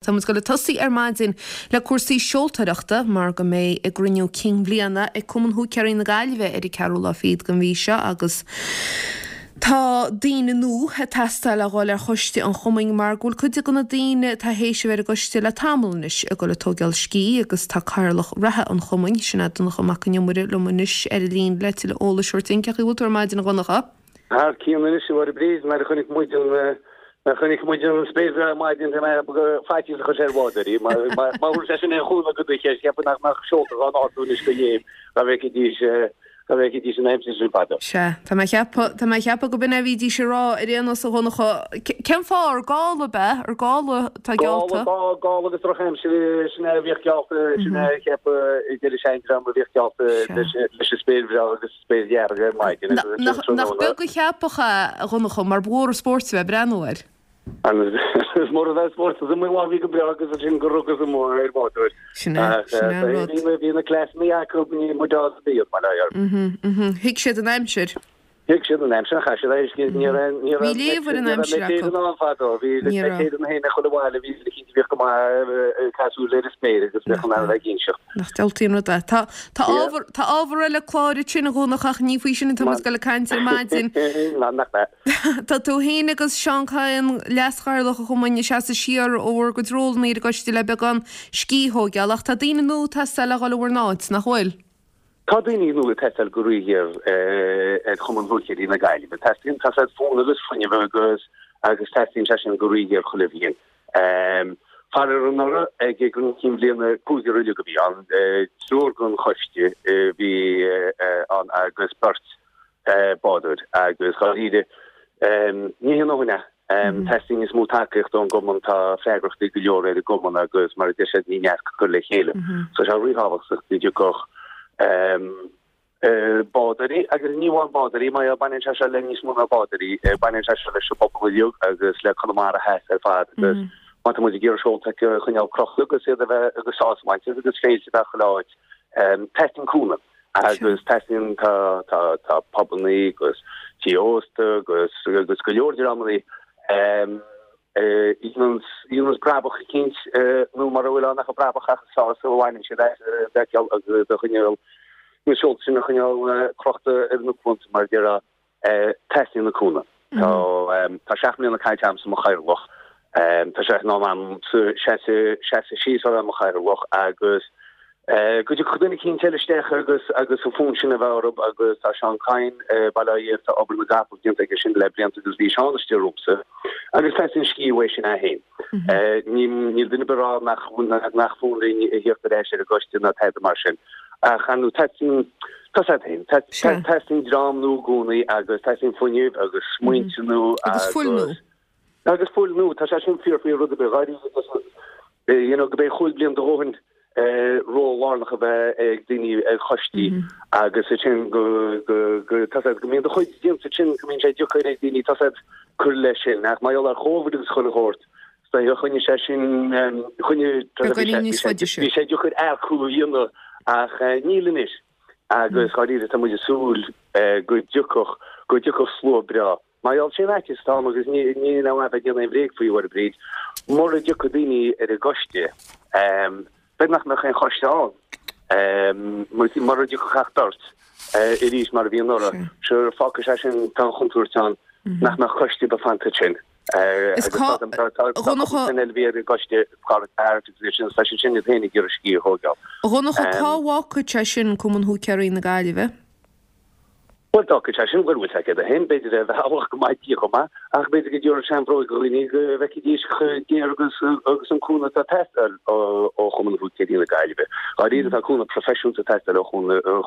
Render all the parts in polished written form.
Tá muid ag dul ag tosaí ar maidin le cúrsaí seoltóireachta mar go mbeidh a gcruinniú cinn bhliana ag Cumann Húicéirí na Gaillimhe ar an ceathrú lá fichead den mhí seo agus tá daoine nua ag teastáil le dhul ar choiste an chumainn mar go bhfuil cuid de na daoine atá théis a bheith ar an gcoiste le tamall anois ag dul ag tógáil scíth agus tá cathaoirleach reatha an chumainn, sin é Donncha Mac an Iomaire liom anois ar an líne le tuilleadh eolais a thabhairt dúinn. Cén chaoi a bhfuil tú ar maidin a Dhonncha? Thar cionn anois, a Mháire Bríd, nuair a chonaic muid an nuair a chonaic muid an spéir bhreá ar maidin bhí mé ag ceapadh faitíos a chuir sé ar bhádóirí má thabharfaidh sé sin aon chúnamh do do cheist cheapfainn nach mbeadh seolta dhá n-ardú anois go léim dá bhfeicfidís dá bhfeicfidís an aimsir sin fadó. Sea, tá mé ag ceapadh, tá mé ag ceapadh go b'in é a bhídís ag rá ar aon nós a Dhonncha. Cén fáth, ar gála ab ea? Ar gála atá geallta? Gála, gála agus drochaimsir, sin é a bhíodh geallta, sin é a cheapadh a deireadh seandream a bhíodh geallta leis an spéir bhreá agus spéir dhearg ar maidin agus ansin Nach tráthnóna. beag an cheapach é, a Dhonncha, mar ba mhór an spórt a bheith ag breathnú air. Is mór a bheith spórt is iomaí lá a bhí go breá agus ansin gur rugadh amuigh ar bhádóir. Sin é, Ach sin é an rud. bhí bhí na cleasanna acu, ní muid á bíodh mar air. Thuig siad an aimsir. Thuig siad an aimsir, chaith siad air, ní raibh ní raibh Bhí léamh ar an ní raibh aimsir acu. Met Éireann ann fadó, bhí Ní raibh. Met Éireann féin ag chuile bhaile, bhí siad cinnte bhíodh go maith ag caith súil ar an spéir agus bheadh in ann a bheith ag inseacht. Nach diabhaltaí an rud é. Tá tá ábhar tá ábhar eile cláir ansin a Dhonncha ach ní faoi sin atá muid ag dul ag caint ar maidin. Ná nach ea. Tá tú féin agus Seán Kyne, leaschathaoirleach an chumainn, ag seasamh siar ó bhur gcuid rólanna ar an gcoiste le beagán scíth a thóigeáil ach tá daoine nua ag teastáil le dhul i bhur n-áit, nach bhfuil? Tá daoine nua ag teastáil go ríghéar ar Chumann Húicéirí na Gaillimhe. Teastaíonn, tá said fonn agus fuinneamh agus agus teastaíonn sé sin go ríghéar chuile bhliain. Faraor anuraidh ag an gcruinniú cinn bhliana cúigear uilig a bhí ann, triúr den choiste a bhí ann agus beirt bádóir agus dháiríre ní haon ndóthain é. Teastaíonn níos mó tacaíochta ón gcumann, tá freagrachtaí go leor ar an gcumann agus mar a deir siad ní neart cur le chéile. So tá sé ríthábhachtach go dtiocfadh bádóirí agus ní amháin bádóirí, mar baineann sé seo le níos mó ná bádóirí, baineann sé seo leis an bpobal uilig agus le Conamara Theas ar fad agus má tá muid ag iarraidh seolta a choinneáil crochta agus iad a bheith agus sásamh a bhaint as agus féilte a bheith chuile áit, teastaíonn cúnamh. Agus teastaíonn, tá, tá, tá pubannaí agus tithe ósta agus, agus go leor dreamannaí a dhéananns, dhéananns brabach eicínt nó mura bhfuil ann ach an brabach ach an sásamh a bhaineann siad as a bhfeiceáil agus a choinneáil, na seolta sin a choinneáil crochta ar na cuanta mar a déarfá. Teastaíonn an cúnamh. Tá 7 mbliana caite agamsa i mo chathaoirleach. Tá sé in am a'msa seasamh síos ó bheith i mo chathaoirleach agus go dtiocfadh duine eicínt eile isteach agus agus an fonn sin a bheith orthu agus tá Seán Kyne, Baile Átha Fhirbhirt, tá obair na gcapall déanta aige sin le blianta agus bhí Seán istigh romhamsa agus teastaíonn scíth uaidh sin é féin. Níl duine ar bith ag rá nach nach fonn linn a theacht ar ais ar an gcoiste ná tada mar sin ach ar ndóigh teastaíonn Tá sé féin. Teastaíonn dream nua i gcónaí agus teastaíonn fuinneamh agus smaointe nua agus fuil nua. Agus fuil nua. Tá sé sin fíor faoi rud ar bith. Dháiríre, you know, go mb'fhéidir chúig bliana do dhóthain ról lárnach a bheith ag daoine ar choistí agus ansin go go go tá sé go mbíonn do chuid déanta ansin go mbíonn sé deacair ag daoine tá sé cur leis sin ach mar gheall ar Covid agus chuile shórt choinnigh sé sin choinnigh bhí sé deacair earcú a dhéanamh ach níl anois agus dháiríre tá muid ag súil go dtiocfadh go dtiocfadh slua breá. Mar gheall sé an fhaitíos atá ann agus níl ann a bheith ag déanamh aon bhréag faoi, a Mháire Bríd, mura dtiocfaidh daoine ar an gcoiste, b'fhéidir nach mbeadh aon choiste ann. Mura dtiocfadh ach beirt arís mar a bhí anuraidh, sure fágfaidh sé sin, tá an chontúirt ann nach mbeadh coiste ar bith fanta ansin. Is cá, Tá cúpla duine eile a bhí ar an gcoiste, Pádraig Barrett agus iad sin, tá siad sin iad féin ag iarraidh scíth a thógáil. A Dhonncha, cá bhfágfaidh sé sin Cumann Húicéirí na Gaillimhe? Bhuel, d'fhágfadh sé sin, bhuel, bhfuil sé céard é féin, b'fhéidir ar bhealach go maith di chomh maith, ach b'fhéidir go dtabharfadh sé an bhróig do dhaoine go bhfeicfidís chomh géar agus agus an cúnamh atá ag teastáil ó Chumann Húicéirí na Gaillimhe. Dháiríre, tá cúnamh proifisiúnta ag teastáil ó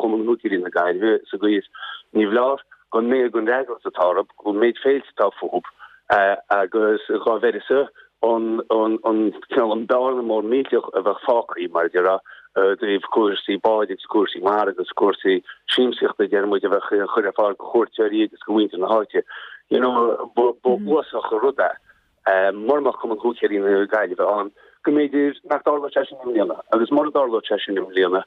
Chumann Húicéirí na Gaillimhe sa gcaoi is ní foláir don méid den fhreagracht atá orthu, don méid féilte atá fúthu agus dhá bheireasa an cineál an bearna mór millteach a bheadh fágtha, mar a déarfá, i dtaobh cúrsaí báid agus cúrsaí mara agus cúrsaí siamsaíochta, deir muid, a bheadh á chur ar fáil do chuairteoirí agus do mhuintir na háite. You know, ba uafásach an rud é mura mbeadh Cumann Húicéirí na Gaillimhe ann, go mb'fhéidir nach dtarlódh sé sin i mbliana. Agus mura dtarlódh sé sin i mbliana,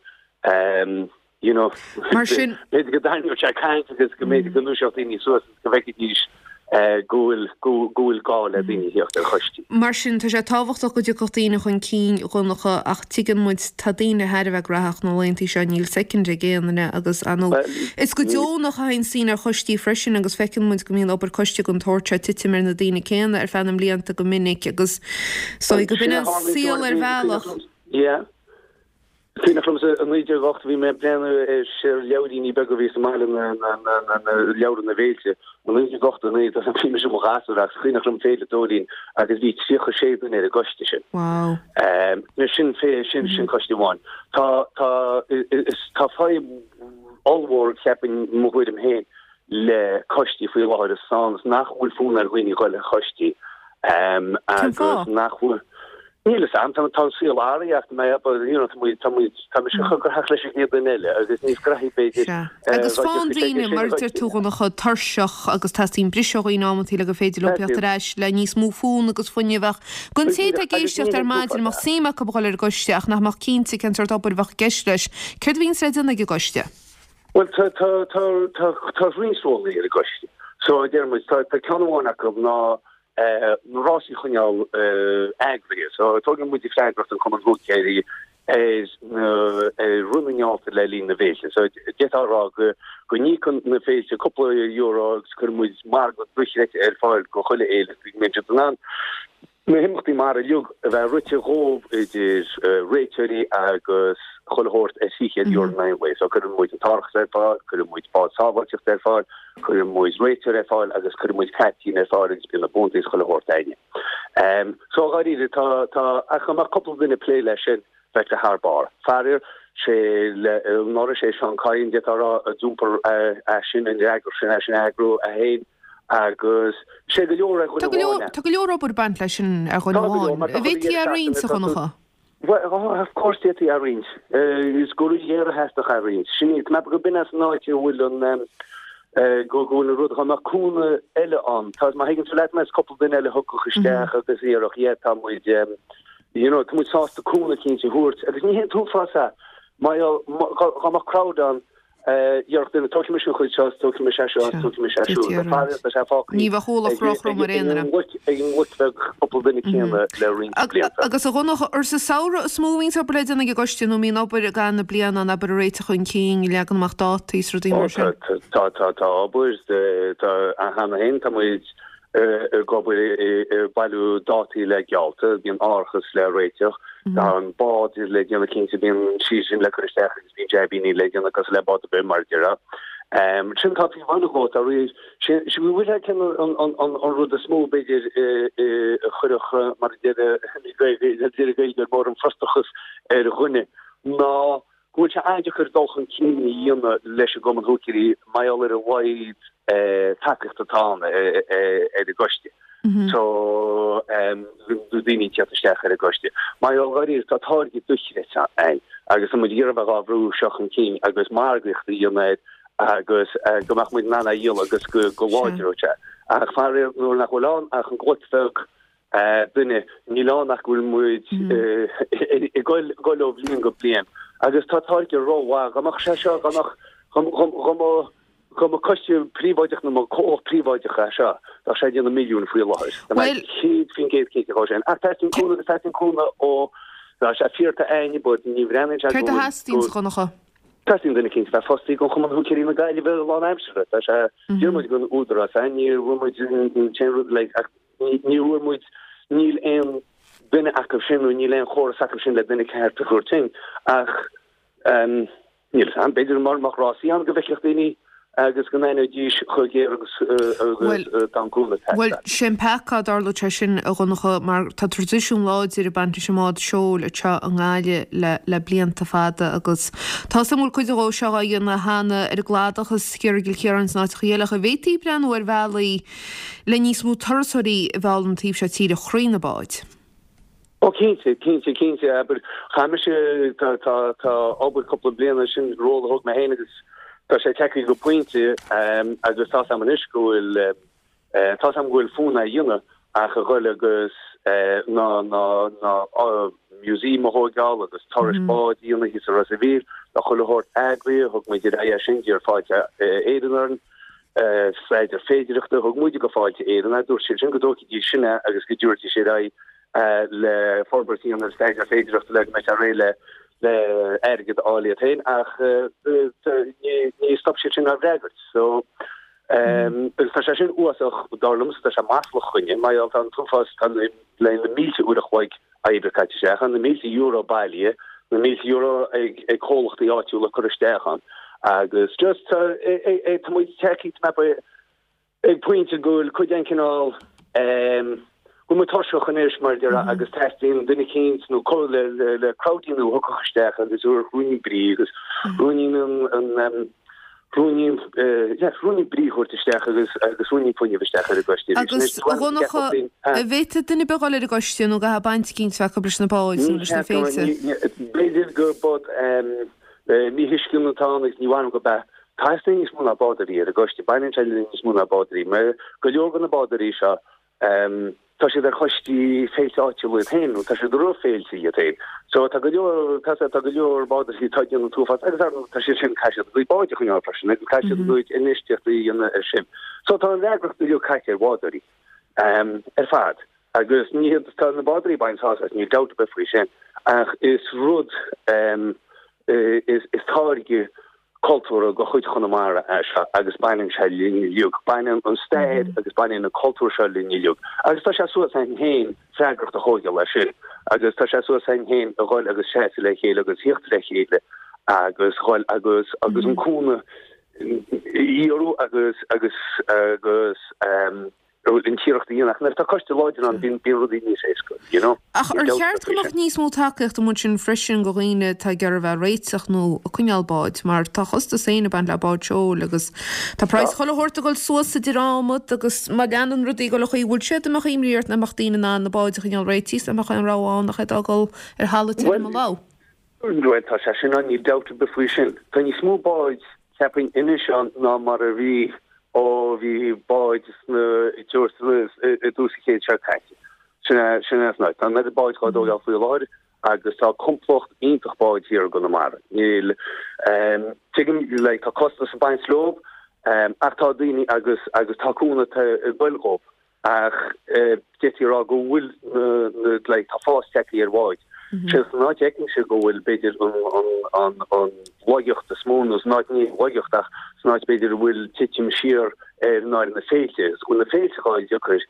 you know, Mar sin. b'fhéidir go dtarraingeodh sé caint agus go mb'fhéidir go ndúiseodh daoine suas agus go bhfeicfidís. Go bhfuil, go bhfuil gá le daoine a theacht ar choistí. Mar sin, tá sé tábhachtach go dtiocfadh daoine chun cinn, a Dhonncha, ach tuigeann muid, tá daoine thar a bheith graitheach na laethanta seo, níl soicind ag aon duine agus, ar ndóigh, is go deonach a théann daoine ar choistí freisin agus feiceann muid go mbíonn obair coiste den tsórt seo ag titim ar na daoine céanna ar feadh na mblianta go minic agus is dóigh go b'in an saol ar bhealach. Yeah. Cuimhneach liomsa i 1980 bhí mé ag breathnú ar leabhairíní beaga a bhí sa mbaile, na leabhra na bhféilte. I 1989 bhí mise i mo ghasúr agus cuimhneach liom Féile Dóirín agus bhí 36 duine ar an gcoiste sin. Wow. Sin sin sin coiste amháin. Tá tá is tá fadhb ollmhór cheapfainn mo thuairim féin le coistí faoi láthair is ann is nach bhfuil fonn ar dhaoine dhul ar choistí agus nach bhfuil Níl fhios a'm, tá an saol athraithe ach mé but you know tá muid tá muid tá mise chomh graitheach leis an gcéad duine eile agus níos graithí b'fhéidir. Sea. Agus faigheann daoine, mar a deir tú, a Dhonncha, tuirseach agus teastaíonn briseadh ó dhaoine amantaí le gur féidir leo teacht ar ais le níos mó fonn agus fuinneamh ach don té atá ag éisteacht ar maidin a mbeadh suim acu a dhul ar an gcoiste ach nach mbeadh cinnte cén sórt obair a bheadh i gceist leis, céard a bhíonns le déanamh ag an gcoiste? Bhuel tá tá tá tá tá roinnt rólaí ar an gcoiste. So a deir muid tá tá ceann amháin acu ná na rásaí a choinneáil eagraithe. So tógann muid freagracht an Cumann Húicéirí ar na ar rith na ngeallta le linn na bhféilte. So d'fhéadfá a rá go go n-íocann na féilte cúpla euro agus cuireann muid margadh dochreidte ar fáil go chuile fhéile go mbíonn siad in ann na himeachtaí mara uilig a bheith rite dhóibh idir réiteoirí agus chuile shórt ar €300 in aghaidh an lae. So cuireann muid an t-árachas ar fáil, cuireann muid bád sábháilteachta ar fáil, Cuireann muid réiteoir ar fáil agus cuireann muid caiptín ar fáil agus bíonn na buantaí is chuile shórt a'inne. So dháiríre tá, tá, ach dá mbeadh cúpla duine ag plé leis sin bheadh sé thar barr. Faraor, sé le, anuraidh sé Seán Kyne d'fhéadfá a rá a d'iompar é sin, an fhreagracht sin, é sin a eagrú é féin agus sé go leor ar dhuine Tá go leor, amháin é. tá go leor obair ag baint leis sin ar dhuine Tá go leor amháin. mar tá An chuile bhféadfaí dheireadh é a roinnt, seachtaine a tá tú, Dhonncha? Bhuel, of course d'fhéadfaí é a roinnt. Is go ríghéar a theastódh é a roinnt. Sin é, go b'in as an áit a bhfuil an, go bhfuil an rud, dá mbeadh cúnamh eile ann. Tá, má thuigeann tú leat mé, is cúpla duine eile a thiocfadh isteach agus a dhéarfadh, yeah, tá muid, you know, tá muid sásta cúnamh eicínt a thabhairt. Agus ní hé an t-uafás é, má, dá mbeadh crowd ann, Déarfadh duine, tógfaidh mise an chuid seo, tógfaidh mise é seo, tógfaidh mise é siúd. Tá faraor, tá sé fágtha Ní bheadh ualach róthrom ar aon duine. ag an gcloich bheag cúpla duine céanna le roinnt blianta. Agus a Dhonncha, ar sa samhradh is mó a bhíonns obair le déanamh ag an gcoiste nó an mbíonn obair i gcaitheamh na bliana ann, abair ag réiteach chun cinn, leagan amach dátaí is rudaí mar sin? Tá, tá, tá obair, tá, cheana féin tá muid ag obair ag bailiú dátaí le geallta, bíonn árachas le réiteach, tá an bád le déanamh cinnte, bíonn sí sin le cur isteach agus bíonn jaibíní le déanamh cosúil le bád ar bith mar a déarfá. Sin tá taobh amháin dhó, tá rí, sin bhfuil sé cén an rud is mó b'fhéidir a chuirfeadh mar a deir deir Gaeilgeoir mór an frustrachas ar dhuine ná go bhfuil sé an-deacair dul chun cinn a dhéanamh leis an gCumann Húicéirí mar gheall ar a laghad tacaíochta atá ann ar an gcoiste. So daoine ag teacht isteach ar an gcoiste. Mar gheall dháiríre tá táirge dochreidte ann agus tá muid ag iarraidh a bheith dhá bhrú seo chun cinn agus margaíocht a dhéanamh air agus go mbeadh muid in ann é a dhíol agus go láidreodh sé. Ach faraor nuair nach bhfuil ann ach an gcloich bheag duine, níl ann ach go bhfuil muid ag dul ó bhliain go bliain agus tá táirge rómhaith. Dá mbeadh sé seo, dá mbeadh, dá mbeadh, dá mba coiste príobháideach nó mba comhlacht príobháideach é seo, bheadh sé ag déanamh milliúin faoi láthair. Tá mé 100% cinnte dhó sin. Ach teastaíonn cúnamh agus teastaíonn cúnamh ó, tá sé fíor tá aithne but ní bhreathnaíonn sé go Céard a theastaíonn, a Dhonncha? Teastaíonn duine eicínt a bheith fostaí don Chumann Húicéirí na Gaillimhe lánaimseartha. Tá sé, d'iarr muid don Údarás é, ní bhfuair muid an t-aon rud like ach Ní bhfuair muid, níl aon duine acu sin nó níl aon chóras acu sin le duine ceart a thabhairt chugainn ach níl fhios a'm, b'fhéidir mura mbeadh rásaí ann go bhfeicfeadh daoine agus go n-aithneoidís chomh géar agus tá an cúnamh ag teastáil. Bhuel, sé an peaca dá dtarlódh sé sin, a Dhonncha, mar tá traidisiún láidir ag baint leis an mbád seoil anseo i nGaillimh le le blianta fada agus tá 'fhios a'm go bhfuil cuid dhó seo á dhéanamh cheana ar an gcladach is thiar i gCill Chiaráin is in áiteacha eile ach an bhféadfaí breathnú ar bhealaí le níos mó turasóirí a mhealladh an taobh seo tíre thrí na báid. Ó cinnte, cinnte, cinnte, abair, chaith mise, tá, tá, tá obair cúpla bliana, sin ról a thóg mé féin agus tá sé tagtha go pointe agus tá's a'm anois go bhfuil, tá's a'm go bhfuil fonn é a dhéanamh ach a ghoil agus ná, ná, ná museum a thóigeáil agus turais báid a dhéanamh thíos i Ros a' Mhíl, tá chuile shórt eagraithe, thug muid ar aghaidh é sin, d'iarr Fáilte Éireann orainn. Staidéar féidearthachta, thug muide go Fáilte Éireann é, dúirt siad sin go dtógfaidís sin é agus go dtabharfaidís ar aghaidh le forbairt a dhéanamh ar staidéar féidearthachta le go mbeadh sé réidh le le airgead a fháil iad féin ach ní stop siad sin ár bhfreagairt. So agus tá sé sin uafásach dar liomsa, tá sé maslach dhúinne, mar gheall tá an t-uafás, tá le na mílte uair a chloig oibre caite isteach ann, na mílte euro bailithe, na mílte euro ag ag comhlachtaí áitiúla curtha isteach ann agus just tá tá muid tagtha ag pointe go bhfuil cuid den cineál go bhfuil muid tuirseach anois mar a déarfá agus teastaíonn duine eicínt nó le le le crowdie nua a thiocfadh isteach agus a thabharfadh ruainnín brí agus ruainnín an an ruainnín yeah ruainnín brí a thabhairt isteach agus agus ruainnín fuinnimh isteach ar an gcoiste arís. Agus a Dhonncha, an bhféadfadh duine ar bith dhul ar an gcoiste nó an gcaithfidh baint eicínt bheith acu leis na báid nó leis na féilte? B'fhéidir gur bod míthuiscint atá ann agus ní mhaith liom gurb ea. Teastaíonn níos mó ná bádóirí ar an gcoiste, baineann sé le níos mó ná bádóirí. Mar go leor de na bádóirí seo, tá siad ar choistí féilte áitiúla iad féin, nó tá siad i rith féilte iad féin. So tá go leor, tá tá go leor bádóirí atá ag déanamh an t-uafás agus ar ndóigh tá siad sin, caithfidh siad a gcuid báid a choinneáil freisin agus caithfidh siad a gcuid infheistíochtaí a dhéanamh ar sin. So tá an fhreagracht uilig caite ar bhádóirí ar fad. Agus ní hiad, tá na bádóirí ag baint sásamh as, níl dabht ar bith faoi sin, ach is rud, is táirge cultúrtha de chuid Chonamara é seo agus baineann sé linn uilig, baineann an stair agus baineann an cultúr seo linn uilig. Agus tá sé suas againn féin freagracht a thógáil as sin agus tá sé suas againn féin a dhul agus seasamh le chéile agus thíocht le chéile agus dhul agus agus an cúnamh a iarraidh agus agus agus an t-iarracht a dhéanamh. Ach nuair atá coiste láidir ann, bíonn rudaí níos éasca, you know. Ach ar cheart go mbeadh níos mó tacaíochta amuigh ansin freisin go dhaoine atá ag iarraidh a bheith ag réiteach nó ag coinneáil báid, mar tá a chostas féin ag baint le bád seoil agus tá praghas chuile shórt ag dul suas idir adhmad agus má leanann rudaí ag dul an chaoi a bhfuil siad, an mbeadh imní ort nach mbeadh daoine in ann na báid a choinneáil réitithe is nach mbeadh aon rogha ann ach iad a fhágáil ar thalamh tirim a ló. Bhuel, tá sé sin ann, níl dabht ar bith faoi sin. Tá níos mó báid, cheapfainn, anois ann ná mar a bhí ó bhí báid sna i dtús an chéid seo caite. Sin é, sin é an áit. Tá an oiread báid dhá dtógáil faoi láthair agus tá complacht iontach báid thiar i gConamara. Níl, tuigim, like, tá costas ag baint leo, ach tá daoine agus, agus tá cúnamh ag goil dhóibh. Ach d'fhéadfaí a rá go bhfuil na, like, tá fás tagtha ar bháid. Sé san áit a fheicimse go bhfuil, b'fhéidir, an, an laigeacht is mó, nó san áit, ní laigeacht ach san áit b'fhéidir a bhfuil titim siar ar ná ar na féilte. Is go bhfuil na féilte a fháil deacair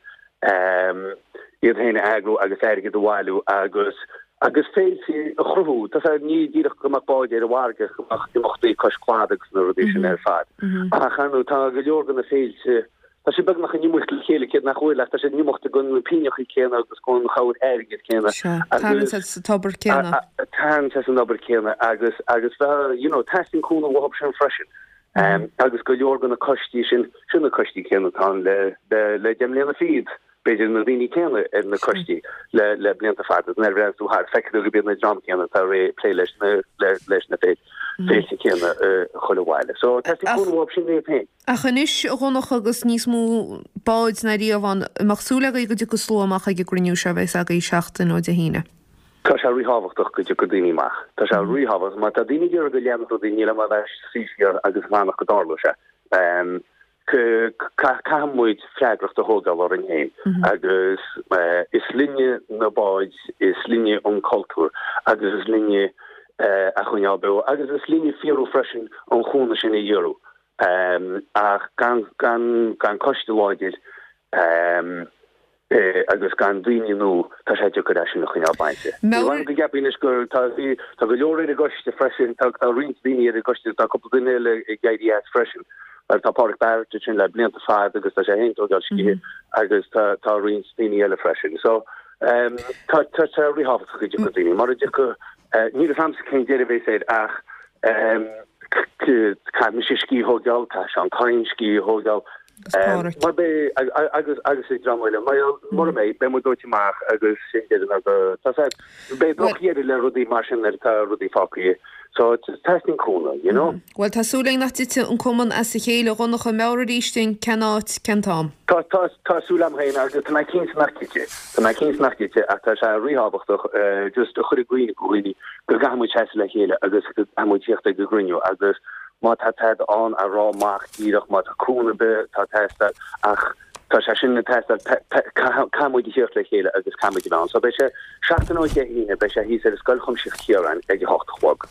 iad féin a eagrú agus airgead a bhailiú agus, agus féilte a chruthú. Tá sé, ní díreach go mbeadh báid ar an bhfarraige, go mbeadh imeachtaí cois cladaigh agus na rudaí sin ar fad. Ach ar ndóigh tá go leor de na féilte, Tá siad beagnach in iomaíocht le chéile, cé nach bhfuil, ach tá siad in iomaíocht don na pingneachaí céanna agus don chabhair airgid céanna. Sea, tarraingt sa tobar céanna. Tarraingt as an obair céanna agus, agus bheith, you know, teastaíonn cúnamh uathu sin freisin. Agus go leor de na coistí sin, sin na coistí céanna atá ann le, le, le 10 mbliana fichead, b'fhéidir na daoine céanna ar na coistí le, le blianta fada. Nuair a bhreathnaíonn tú thart, feicfidh tú go b'iad na dream céanna atá ag plé leis na, le, leis na féilte céanna chuile bhaile. So, teastaíonn cúnamh uathu sin iad féin. Ach anois, a Dhonncha, agus níos mó báid ná riamh ann, an mbeadh súil agaibh go dtiocfaidh slua amach ag an gcruinniú seo a bheas agaibh seachtain ó Dé hAoine? Tá sé ríthábhachtach go dtiocfaidh daoine amach. Tá sé ríthábhachtach. Má tá daoine ag iarraidh go leanfadh rudaí, níl am a bheith ag suí siar agus ag fanacht go dtarlóidh sé. Caithfidh muid freagracht a thógáil orainn féin agus is linne na báid, is linne an cultúr agus is linne a choinneáil beo agus is linne fíorú freisin an chúnamh sin a iarraidh. Ach gan gan coiste láidir agus gan daoine nua, tá sé deacair é sin a choinneáil bainte. Ní bhfuil go gceapfaí anois gur tá tá go leor ar an gcoiste freisin, tá tá roinnt daoine ar an gcoiste, tá cúpla duine eile ag éirí as freisin. Mar tá Pádraic Barrett ansin le blianta fada agus tá sé féin ag tógáil scíthe agus tá tá roinnt daoine eile freisin. So tá tá sé ríthábhachtach go dtiocfaidh daoine. Mura dtiocfaidh, níl a fhios a'msa cén deireadh a bheas air ach Caithfidh mise scíth a thógáil, caithfidh Seán Kyne scíth a thógáil. Mar beidh, agus agus ag dream eile, mar mura mbeidh, beidh muid dóite amach agus sin deireadh na go, tá sé, beidh drochdheireadh le rudaí mar sin nuair atá rudaí fágtha. So, teastaíonn cúnamh, you know. Bhuel, tá súil againn nach dtitfidh an cumann as a chéile, a Dhonncha. Meabhraigh arís dúinn cén áit, cén t-am. Tá, tá, tá súil agam féin agus tá mé cinnte nach dtitfidh. Tá mé cinnte nach dtitfidh ach tá sé ríthábhachtach just a chur i gcuimhne do dhaoine go gcaithfidh muid seasamh le chéile agus go gcaithfidh muid tíocht ag an gcruinniú agus. Má tá tada ann a rá amach díreach, má tá cúnamh ar bith atá ag teastáil, ach tá sé sin ag teastáil, caithfidh muid a thíocht le chéile agus caithfidh muid a bheith ann. So beidh sé seachtain ó Dé hAoine, beidh sé thíos ar Scoil Chuimsitheach Chiaráin ag a hocht a chlog.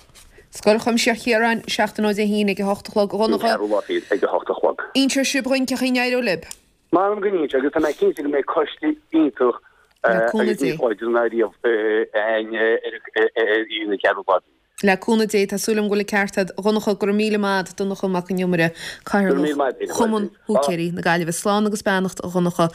Scoil Chuimsitheach Chiaráin, seachtain ó Dé hAoine ag a hocht a chlog. A Dhonncha. An ceathrú lá fichead ag a hocht a chlog. Inseoidh sibh dhúinn cén chaoi a n-éireoidh libh. M'anam go n-inseoidh agus tá mé cinnte go mbeidh coiste iontach agus níos láidre ná riamh againn ar an cheathrú lá fichead. Le cúnamh Dé, tá súil agam go bhfuil an ceart agat. A Dhonncha, go raibh míle maith agat, Donncha Mac an Iomaire, Cathaoirleach Chumann Húicéirí na Gaillimhe. Slán agus beannacht, a Dhonncha.